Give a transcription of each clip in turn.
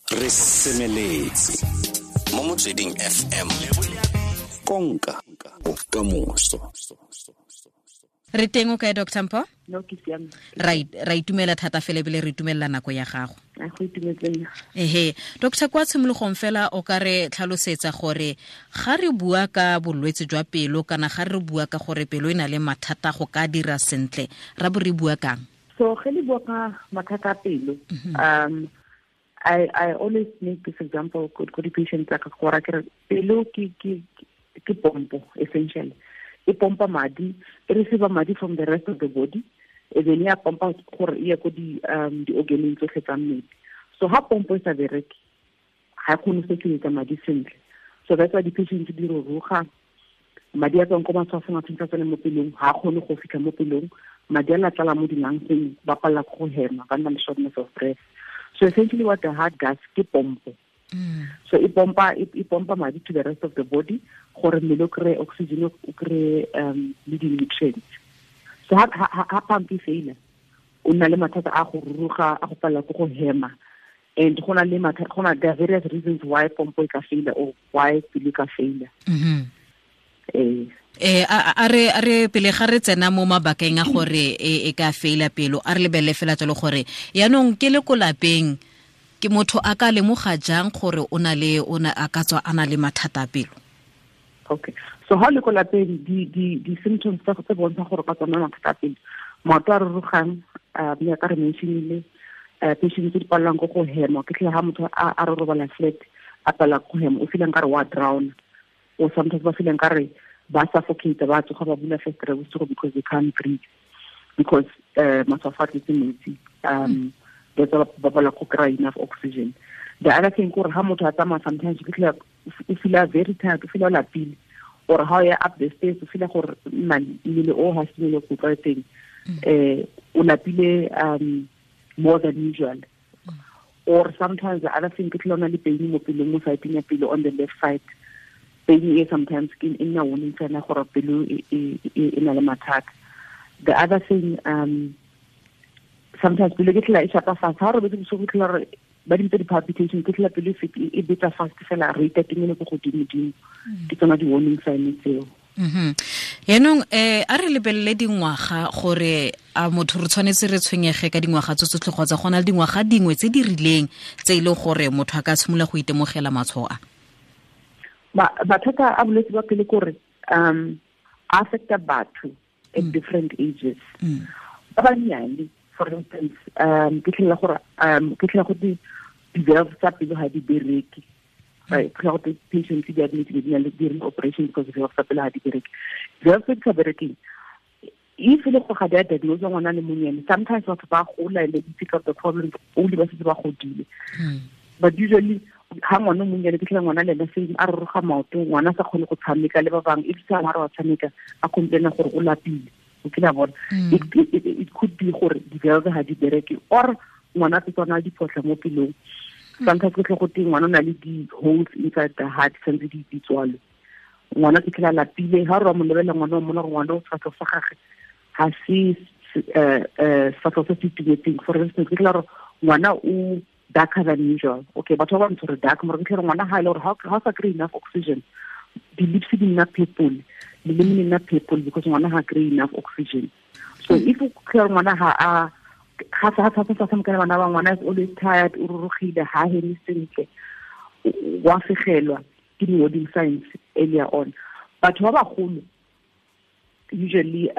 Re semeletse mo Motsweding FM, konka bokamoso. Re teng, o kae, Dr Mpho? No, ke siame. Ra itumela thata fela ebile re itumelela nako ya gago. A go itumetseng. Ehe, doctor, kwa tshimologong fela o ka re tlhalosetsa gore ga re bua ka bolwetse jwa pelo kana ga re bua ka gore pelo e na le mathata go ka dira sentle, ra bo re bua kang? So ge le bua ka mathata a pelo, I always make this example ko di-patient tsa ka, gore ke re pelo ke pompo essentially. E pompa madi, e receive madi from the rest of the body, e then ya pompa gore e ye ko di-organeng tsotlhe tsa mmele. So ha pompo e sa bereke, ga e kgone go circulate madi sentle. So that's why di-patients di ruruga, madi a tswang ko matshwafong a tshwanetse a tsene mo pelong, ga a kgone go fitlha mo pelong, madi a latlala mo di-lungseng, ba palela ke go hema, ba nna le shortness of breath. So essentially what the heart does ke pompo. So e pompa madi to the rest of the body gore mmele o kry oxygen, o kry le di-nutrients. So ha pump e faila, o nna le mathata a go ruruga, a go palela ke go hema. And go na le mathata, go na there are various reasons why pompo e ka faila or why pelo e ka faila. Ee. A re pele ga re tsena mo mabakeng a gore e ka faila pelo, a re lebelele fela jalo gore yaanong ke le ko lapeng, ke motho a ka lemoga jang gore o na le o na a ka tswa a na le mathata a pelo? Okay, so ha le ko lapeng, di symptoms tse bontsha gore ka tsona mathata a pelo: maoto a rurugang, mme ka re mentionile patient tse di palelwang ko go hema, ke tlhe ha motho a re robala flat, a palela go hema, o feelang ka re wa drown, or sometimes ba feelang ka re ba suffocate, ba tsoga ba bula festere bosigo because they can't breathe, because matshwafo a tletse metsi. That's why ba palela go kry enough oxygen. The other thing kore ha motho a tsamaya, sometimes o fitlhela o feela very tired, o feela o lapile, or ha o ya up the stairs, o feela gore man, mmele o ha se mmele o tlwaetseng, o lapile more than usual. Or sometimes the other thing ke tlhela o na le pain mo pelong, mo side ya pelo, on the left side. Pain e sometimes ke e nna warning sign ya gore pelo e na le mathata. The other thing, sometimes pelo ke tlhela e shapa fast ha o robetse bosigo, ke tlhela gore ba di bitsa di-palpitation, ke tlhela pelo e betsa fast fela, rate ya teng e le ko godimo-dimo. Ke tsona di-warning sign tseo. Yaanong a re lebelele dingwaga, gore a motho re tshwanetse re tshwenyege ka dingwaga tse tsotlhe kgotsa go na le dingwaga dingwe tse di rileng tse e leng gore motho a ka tshimolola go itemogela matshwao a? Mathata a bolwetse ba pele kore a affecta batho at different ages. Ba bannyane, for instance, ke tlhela gore ke tlhela go di valve tsa pelo ga di bereke, right? Ke tlhela go patients di admit, di na le during operation because valve tsa pelo ga di bereke. Valve tse di sa berekeng, if e le gore ga di a diagnose ngwana le monyane, sometimes batho ba gola and they pick up the problems only ba setse ba godile. But usually ha ngwana o monnyane, ke tlhela ngwana le ena same, a roroga maoto, ngwana a sa kgone go tshameka le ba bangwe, if sa ngwana wa tshameka, a complaina gore o lapile, o kile a bona. It could be gore di-valve ga di bereke or ngwana a tsetswana a diphotlha mo pelong. Sometimes ke tlhe go teng ngwana o na le di-holes inside the heart, santse di tswalwe. Ngwana ke tlhela lapile, ha re wa mo lebelela ngwana, wa mmona gore ngwana o sefatlhego sa gage ga se sefatlhego se se itumetseng. For instance, ke tlhela gore ngwana o darker than usual. Okay, batho ba bantsho re dark, mara ke tlhela ngwana ha ile gore ha o sa kry enough oxygen, di-lips di nna purple, leleme le nna purple, because ngwana ha kry enough oxygen. So if o tlhela ngwana ha a ga sa sa sa tshameka le bana ba, ngwana is always tired, o rurugile, ha heme sentle, wa fegelwa, ke di-warning signs earlier on. Batho ba bagolo usually,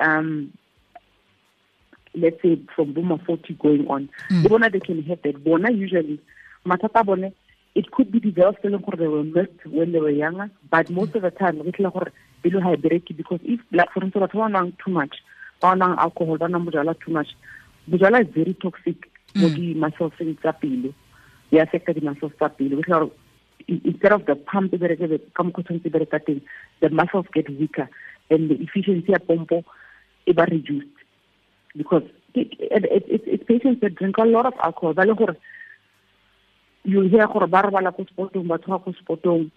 let's say from boma 40 going on, le bona they can have that. Bona usually mathata a bone, it could be developed e leng gore they were missed when they were younger, but most of the time re tlhela gore pelo ha e bereke because if, like for instance, batho ba nwang too much, ba nwang alcohol, ba nwang bojalwa too much. Bojalwa is very toxic mo di-muscleseng tsa pelo, e affecta di-muscles tsa pelo. Re tlhela gore instead of the pump e bereke ka mokgwa tshwanetse e bereka teng, the muscles get weaker and the efficiency ya pompo e ba reduced, because it's patients that drink a lot of alcohol, ba le gore you hear gore ba robala ko spotong, ba tsoga ko spotong,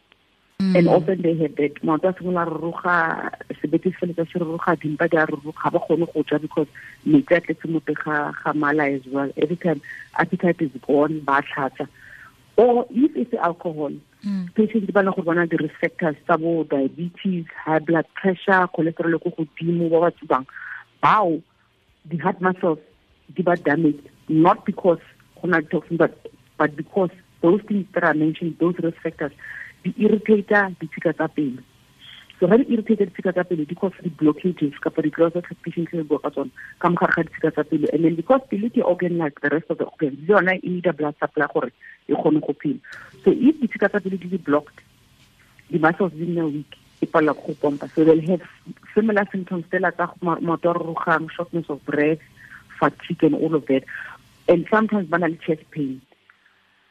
and often they have that maoto a simolola ruruga, sebete se feletsa se ruruga, dimpa di a ruruga, ba kgone go ja because metsi a tletse mo teng ga mala as well. Every time appetite is gone, ba tlhatsa. Or if it's alcohol, patients ba leng gore bona di-risk factors tsa bo diabetes, high blood pressure, cholesterol ko godimo, ba ba tsubang, bao the heart muscles di ba damaged, not because go na le toxin, but because those things that are mentioned, those risk factors, di irritate ditshika tsa pelo. So ga di irritate ditshika tsa pelo, di cause di-blockages kapa di-clots tsa patient re bua ka tsona ka mogare ga ditshika tsa pelo. And then because pelo ke organ like the rest of the organs, le yona e need a blood supply gore e kgone go phela. So if ditshika tsa pelo di le blocked, the muscles di nna weak, e palela go pompa. So they'll have similar symptoms fela tsa maoto a rurugang, shortness of breath, fatigue and all of that. And sometimes ba na le chest pain.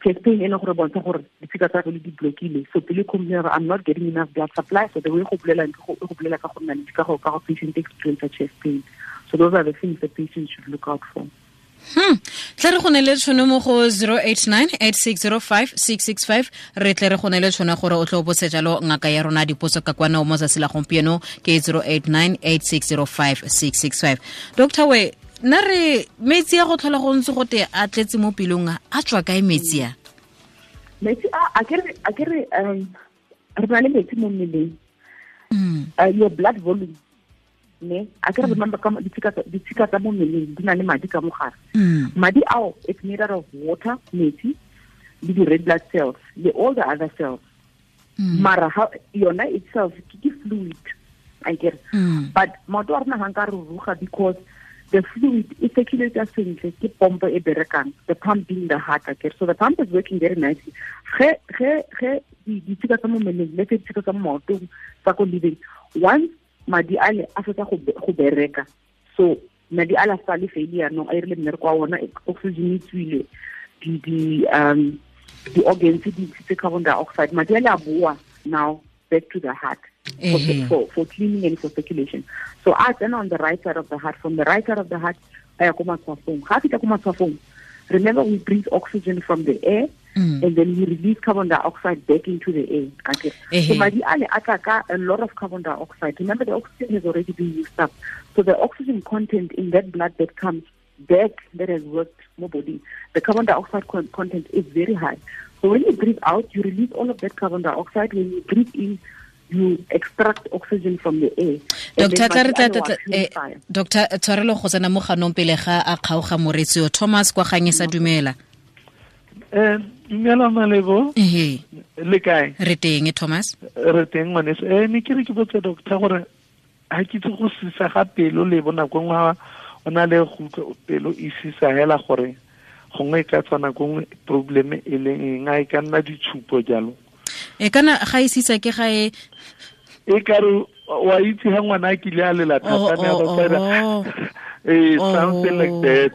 Chest pain e leng gore bontsha gore ditshika tsa pelo di blockile. So pelo complain I'm not getting enough blood supply. So the way go bolela go bolela ka go nna le ka go patient experience chest pain. So those are the things the patient should look out for. Tle re go ne le tšhono mo go 089-8605-665, re tle re go ne le tšhono gore o tlo botse jalo ngaka ya rona dipotso ka kwana mo tsatsi la gompieno ke 089-8605-665. Doctor we nna re metsi a go tlhola go ntse go te a tletse mo pelong a tswa kae metsi a? Metsi a ke re re na le metsi mo mmeleng. Your blood volume, ne a ke re remember ka ditshika tsa mo mmeleng di na le madi ka mogare. Madi ao it's made out of water, metsi le di red blood cells le all the other cells. Mara yona itself ke fluid, I get. But maoto a rona ga nka ruruga because the fluid e circulates sentle, ke pompo e berekang, the pump being the heart, okay? So the pump is working very nicely. Ge ditshika tsa mo mmeleng le ditshika tsa mo maotong tsa ko living, once madi ale a fetsa go bereka, so madi ale a sa le failure no a irile mmereko wa ona, oxygen e tswile, di organs di ntshitse carbon dioxide, madi ale a boa now back to the heart for cleaning and for circulation. So a tsena on the right side of the heart, from the right side of the heart a ya ko matshwafong. Ga fita ko matshwafong, remember we breathe oxygen from the air, and then we release carbon dioxide back into the air. Okay. So madi ale a tla ka a lot of carbon dioxide. Remember the oxygen has already been used up. So the oxygen content in that blood that comes back that has worked more body, the carbon dioxide content is very high. So when you breathe out, you release all of that carbon dioxide. When you breathe in, you extract oxygen from the air. Doctor Doctor tshwarelo go tsena mo ganong pele ga a kgaoga moretsi o Thomas kwa gang sa dumela. Dumela Malebo. Le kae? Re teng Thomas. Re teng ngwaneso. Ne ke re ke botse doctor gore ha ke itse go sisa ga pelo le bona go ngwa o na le go pelo e sisa hela gore gongwe e ka tswana gongwe problem e leng eng, a e ka nna ditshupo jalo. E kana ga e sisa ke ga e e ka re wa itse ha ngwana a kile a lela thata ne a ba tsena something like that.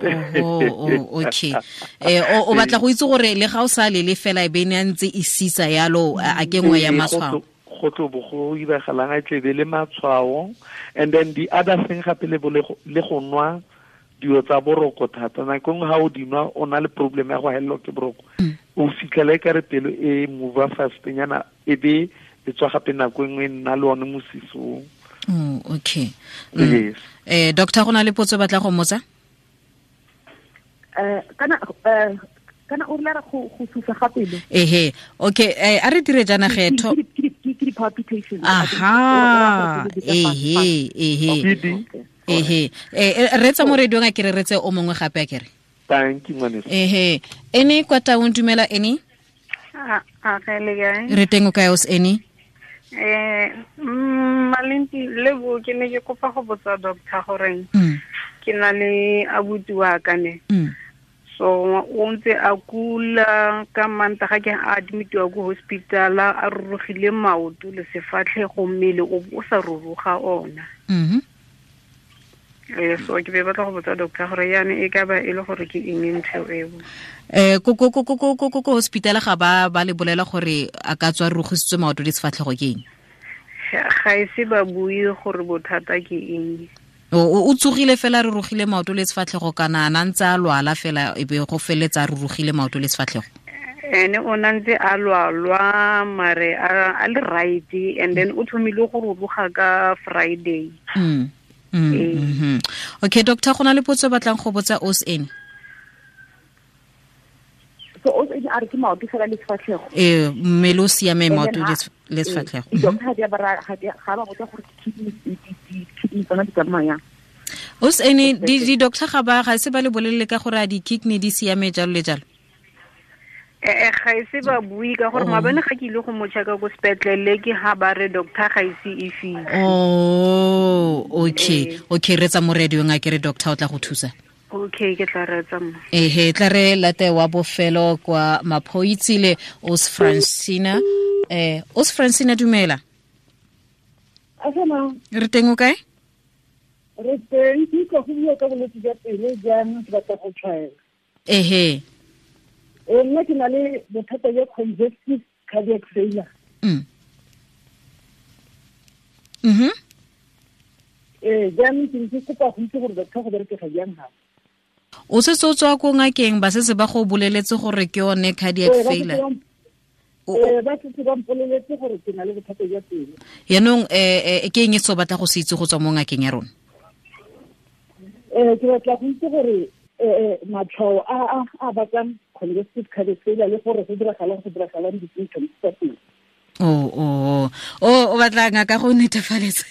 Okay. O batla go itse gore le ga o sa lele fela e be ne a ntse e sisa yalo a ke nngwe ya matshwao. Go tlo bo go iragalang a tlebe le matshwao. And then the other thing gape le go nwa dilo tsa boroko thata, nako nngwe ga o di nwa o na le problem ya go helelwa ke boroko, o fitlhela e kare pelo e move fast nyana e be e tswa gape nako nngwe e nna le one mosisong. Okay. Yes. Doctor go na le potso batla go mmotsa? Kana o rela go susa ga pelo. Ehe. Okay, a re dire jana ge tho ke di palpitations. Aha. Ehe, ehe. Ehe. Re tsa mo radiong a ke re retse o mongwe gape a kere. Thank you ngwaneso. Ehe. Ene kwa taung dumela ene? A ga le kae? Re teng o kae os ene? Malenti lebo ke ne ke kopa go botsa doctor gore ke na le abuti wa ka ne. So o ntse a kula ka Mantaga ke a admitiwa ko hospital a rurugile maoto le sefatlhego mmele o sa ruruga ona. So ke be batla go botsa doctor gore yana e ka ba e le gore ke eng ntho eo. Ko hospital ga ba le bolela gore a ka tswa rurugisitswe maoto le sefatlhego ke eng? Ga e se ba bue gore bothata ke eng. O tsogile fela re rugile maoto le sefatlhego kana a ntse a lwala fela e be go feletsa a rurugile maoto le sefatlhego? Ene o na ntse a lwalwa mare a le right, and then o thomile go ruruga ka Friday. Okay doctor, go na le potso batlang go botsa os ene. So os ene a re ke maoto fela le sefatlhego. Ee, mmele o siame, maoto le sefatlhego. Di-doctor ga di a ba ga ba botsa gore di-kidney tsona di tsamaya. Os ene di-doctor ga ba ga se ba le bolelele ka gore a di-kidney di siame jalo le jalo? Ga ise ba bue ka gore maabane ga ke ile go mo checka ko sepetlele ke ha ba re doctor ga ise e fitlhe. Oh, okay. Okay, re tsa mo radio nga ke re doctor o tla go thusa. Okay, ke tla reetsa mo. Ehe, tla re late wa bofelo kwa Maphoitsile, Os Francina. Os Francina, dumela. Asana. Re teng o kae? Re teng, ke utlwa go bua ka bolwetse jwa pelo jaanong ke batla go tshwaela. Ehe. Nna ke na le bothata jwa congestive cardiac failure. Jaanong ke ntse kopa go itse gore doctor go berekega jang gape. O setse o tswa ko ngakeng, ba setse ba go boleletse gore ke yone cardiac failure? Ba setse ba mpoleletse gore ke na le bothata jwa pelo. Yaanong ke eng e se o batla go se itse go tswa mo ngakeng ya rona? Ke batla go itse gore matshwao a bakang congestive cardiac failure le gore go diragalang di-symptoms tsa teng. O batla ngaka go netefaletsa.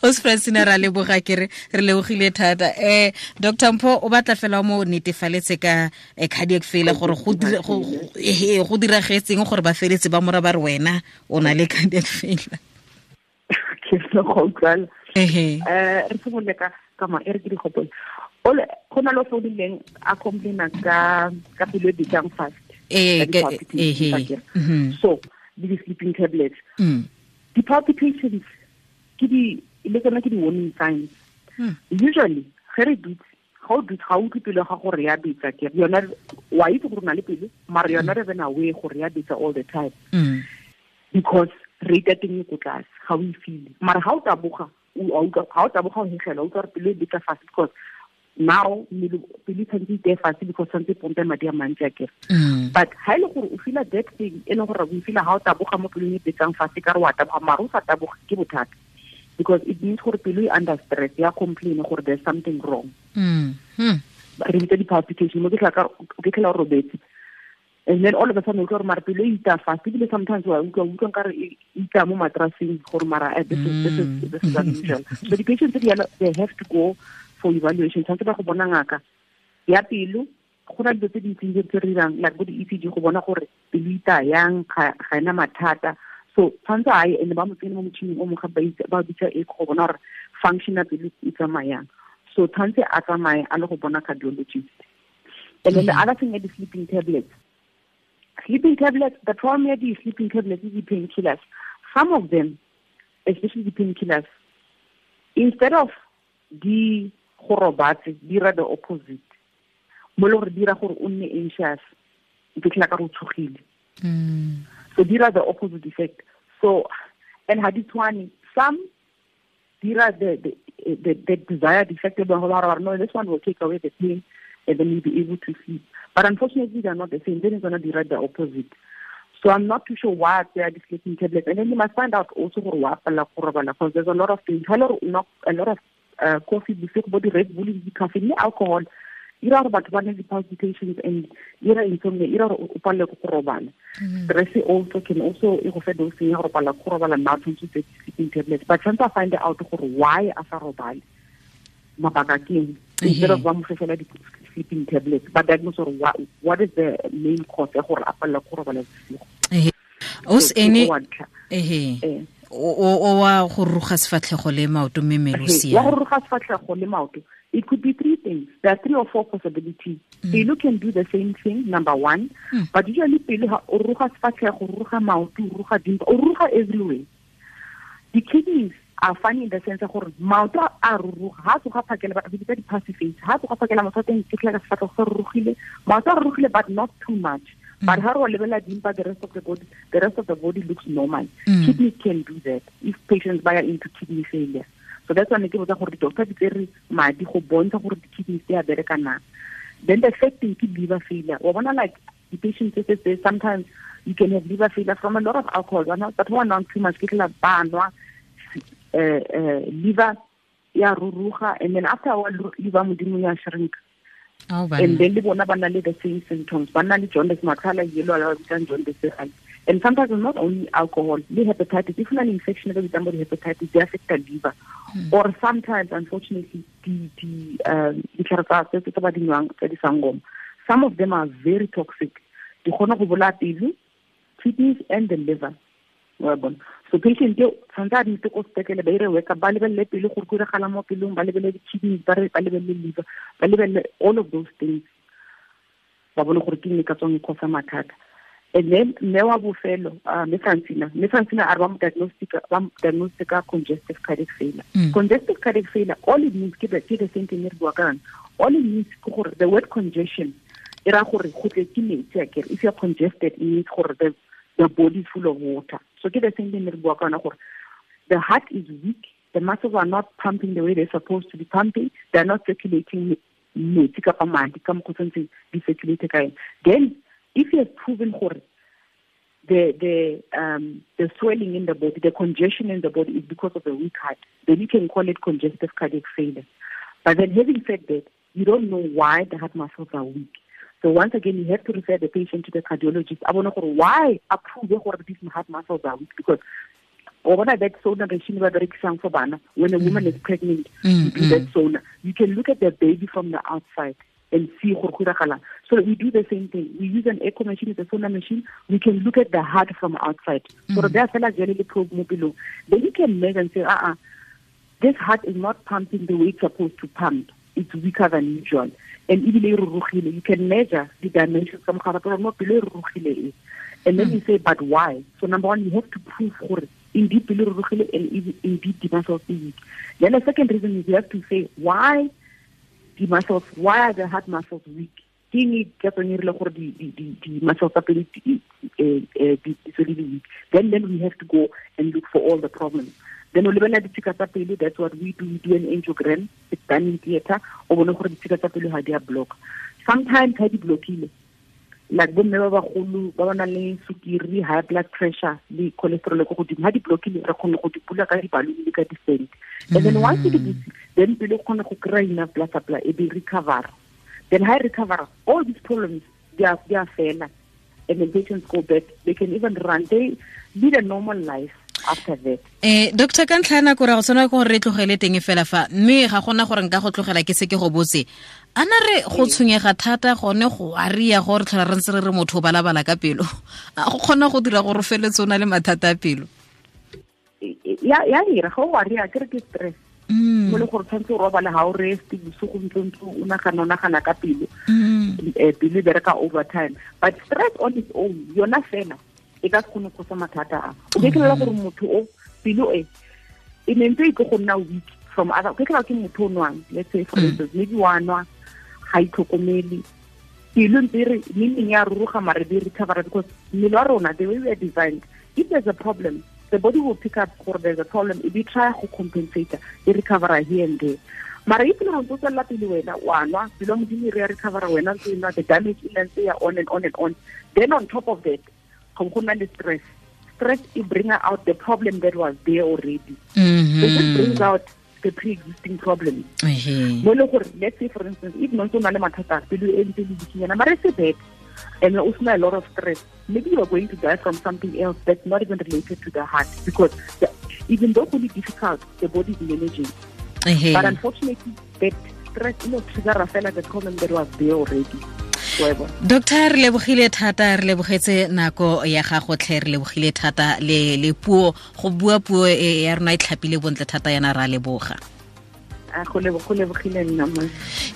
Os Francina, ra leboga ke re lebogile thata. Dr. Mpho o batla fela mo netefaletse ka cardiac failure gore go diragetseng gore ba feletse ba mora ba re wena o na le cardiac failure. Ke se go utlwala. Re simolole ka ma e re ke di gopole. Ole go na le founileng a complaina ka pelo e betang fast. So the sleeping tablets. The palpitations ke di le tsona ke di warning signs. Usually ge re dutse ga o dutse ga o utlwe pelo ga gore ya betsa ke yona wa itse gore o na le pelo mara yona re bena aware gore ya betsa all the time. Because rate ya teng e ko tlase ga o e feel. Mara ga o taboga ga o taboga o hegela o utlwa gore pelo e betsa fast because now pelo tshwanetse iteye fatshe because tshwanetse pompe madi a mantsi a kere. But ha e le gore o feela that thing e leng gore o feela ha o taboga mo pelong e betsang fatshe ka re wa taboga mara o sa taboga ke bothata because it means gore pelo e under stress ya complain gore there's something wrong. Re bitsa di-palpitation mo ke tlhela o robetse and then all of a sudden o utlwa gore mara pelo e ita fast ebile sometimes wa utlwa nkare e ita mo matraseng gore mara this is unusual. So the patients they have to go for evaluation. Tshwanetse ba go bona ngaka ya pelo go na dilo tse dintseng tse re dirang like bo di-ECG go bona gore pelo ita yang ga ena mathata. So tshwanetse a ye and ba mo tsene mo motšhining o mongwe ba bitsa echo go bona gore function ya pelo e tsamayang. So tshwanetse a tsamaye a le go bona cardiologist. And then the other thing is the sleeping tablets. Sleeping tablets, the problem with the sleeping tablets is the painkillers. Some of them, especially the painkillers, instead of di go robatse dira the opposite mo le gore dira gore o nne anxious o fitlhela ka re o tshogile. So dira the opposite effect. So and ha di tshwane, some dira the desired effect no, this one will take away the pain and then you'll be able to sleep. But unfortunately they are not the same. Then it's gonna dira the opposite. So I'm not too sure why they are sleeping tablets. And then you must find out also gore wa pala go robala because there's a lot of things. A lot of coffee, bosigo bo di-Red Bull, di-caffeine le alcohol ira gore batho ba ne di-palpitations and ira insomnia, ira gore o palele ke go robala. Stress also can also e go fe dosing ya gore palela ke go robala nna tshwanetse o tseye di-sleeping tablets but tshwanetse a find out gore why a sa robale mabaka ke eng instead of ba mo fe fela di-sleeping tablets ba diagnose gore what is the main cause ya gore a palele ke go robala bosigo. Os ene o wa go ruga sefatlhego le maoto mme mmele o siame. Wa go ruga sefatlhego le maoto, it could be three things. There are three or four possibilities. Pelo can do the same thing, number one. But usually pelo ha o ruga sefatlhego, o ruga maoto, o ruga dimpa, o ruga everywhere. The kidneys are funny in the sense gore maoto a ruruga ha tsoga phakela ba bitsa di-passive face ha tsoga phakela motho teng ke tlhela sefatlhego se rurugile maoto a rurugile but not too much. But ha re lebela dimpa, the rest of the body looks normal. Kidneys can do that if patients buy into kidney failure. So that's why ne ke botsa gore di-doctor di tsere madi go bontsha gore di-kidneys di a bereka na. Then the third thing ke liver failure. Wa bona like the patients say sometimes you can have liver failure from a lot of alcohol, but who are not too much ke tla ba nwa liver ya ruruga and then after a while liver modimo ya shrink. And then le bona ba na le the same symptoms, ba na le jaundice, matlho a yellow, a bitsang jaundice. And sometimes it's not only alcohol, le hepatitis, if you infection e bitsang bo hepatitis, they affect the liver. Or sometimes, unfortunately, ditlhare tsa tse ba di nwang tsa disangoma, some of them are very toxic. Di kgona go bolaya pelo, kidneys and the liver. So patient yo tshwanetse a admit ko sepetlele, ba ire workup, ba lebelele pele gore go diragala mo pelong, ba lebelele di-kidneys, ba lebelele liver, ba lebelele all of those things, ba bone gore ke eng e ka tswang e cause mathata. And then mme wa bofelo, mme Francina a re ba mo diagnostica congestive cardiac failure. Congestive cardiac failure, all it means ke the same thing re bua ka yone. All it means ke gore the word congestion e ra gore go tletse metsi akere. If you are congested, it means gore the body is full of water. So ke the same thing re bua ka yona gore the heart is weak, the muscles are not pumping the way they're supposed to be pumping, they're not circulating metsi kapa madi ka mokgwa o tshwanetseng di circulate ka yone. Then if you have proven gore the swelling in the body, the congestion in the body is because of a weak heart, then you can call it congestive cardiac failure. But then having said that, you don't know why the heart muscles are weak. So once again, you have to refer the patient to the cardiologist. I want to know why approve gore these heart muscles are weak, because that sauna regime ba berekisang for bana, when a woman is pregnant, you do that sauna. You can look at the baby from the outside and see gore go diragalang. So we do the same thing. We use an echo machine, it's a sonar machine. We can look at the heart from outside. So there fela jale le probe mo pelong. Then you can measure and say, this heart is not pumping the way it's supposed to pump. It's weaker than usual. And ebile e rurugile. You can measure the dimensions ka mogare gore mo pelo e rurugile e. And then you say, but why? So number one, you have to prove gore indeed pelo e rurugile and indeed the muscles are weak. Then the second reason is you have to say, why the muscles, why are the heart muscles weak? Ke eng e ka tswang e rile gore di muscles tsa pelo di tswele di weak? Then we have to go and look for all the problems. Then o lebelela ditshika tsa pelo, that's what we do. We do an angiogram, it's done in theater, o bone gore ditshika tsa pelo ga di a block. Sometimes ha di blockile, like bomme ba bagolo ba ba nang le sukiri, high blood pressure le cholesterol ko godimo, ha di blockile re kgone go di bula ka di-balloon le ka di-stent. And then once di butse, then pelo e kgone go kry-a enough blood supply, e be recover. Then ha e recover, all these problems they are fela, and the patients go back. They can even run, they lead a normal life after that. Doctor, ka ntlha ya nako ra go tshwanela ke gore re tlogele teng fela fa, mme ga gona gore nka go tlogela ke se ke go botse. Ana re go tshwenyega thata gone go aria gore tlhola re ntse re re motho o balabala ka pelo, a go kgona go dira gore o feletse o na le mathata a pelo? Ya ira ga o aria ke re ke stress. Mo le gore tshwanetse o robale ga o rest bosigo ntse o nagana ka pelo. Pelo e bereka overtime. But stress on its own, yona fela e ka se kgone go causa mathata a. O ke tlhola gore motho o pelo e ne ntse e tlo go nna weak from other, ke tlhola ke motho o nwang, let's say for instance, maybe wa nwa ga itlhokomele, pelo ntse e re meaning ya ruruga mare be recover, because mmele wa rona, the way we are designed, if there's a problem, the body will pick up gore there's a problem, e be try go compensate, e recover here and there. Mara if le ntse o tswelela pele wena wa nwa, pelo modimo e re ya recover, wena ntse e nwa, the damage e ntse ya on and on and on. Then on top of that, go na le stress. Stress it bring out the problem that was there already. So it brings out the pre-existing problem. Mo le gore, let's say for instance, if no ntse o na le mathata, pelo e ntse le bikinyana, mara e se bad, and o sena a lot of stress, maybe you are going to die from something else that's not even related to the heart, because even though it's difficult, the body is managing. But unfortunately, that stress, trigger fela the problem that was there already. Doctor, re lebogile thata, re lebogetse nako ya gago tlhe, re lebogile thata le puo, go bua puo e ya rona e tlhapile bontle thata yana, ra leboga. Go lebogile nna mo.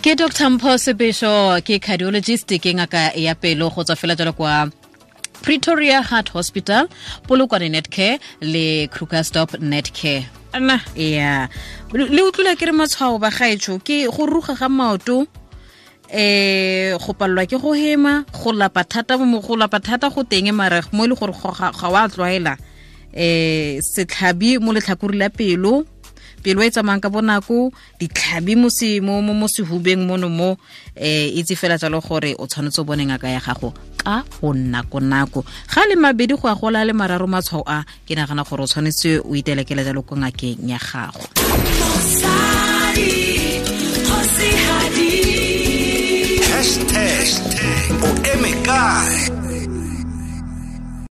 Ke Dr. Mpho Sebesho, ke cardiologist, ke ngaka ya pelo go tswa fela jalo kwa Pretoria Heart Hospital, Polokwane Netcare le Krugersdorp Netcare. Ana ya le utlwile ke re matshwao ba gaetsho ke go ruga ga maoto, go palelwa ke go hema, go lapa thata mo go lapa thata go teng mara mo le gore ga wa tlwaela, setlhabi mo letlhakore la pelo, pelo e tsamayang ka bonako, ditlhabi mo mo sehubeng mono mo, itse fela jalo gore o tshwanetse o bone ngaka ya gago ka go nako nako. Ga le mabedi go a gola le mararo matshwao a, ke nagana gore o tshwanetse o itelekele jalo ko ngakeng ya gago. Hashtag o eme kae?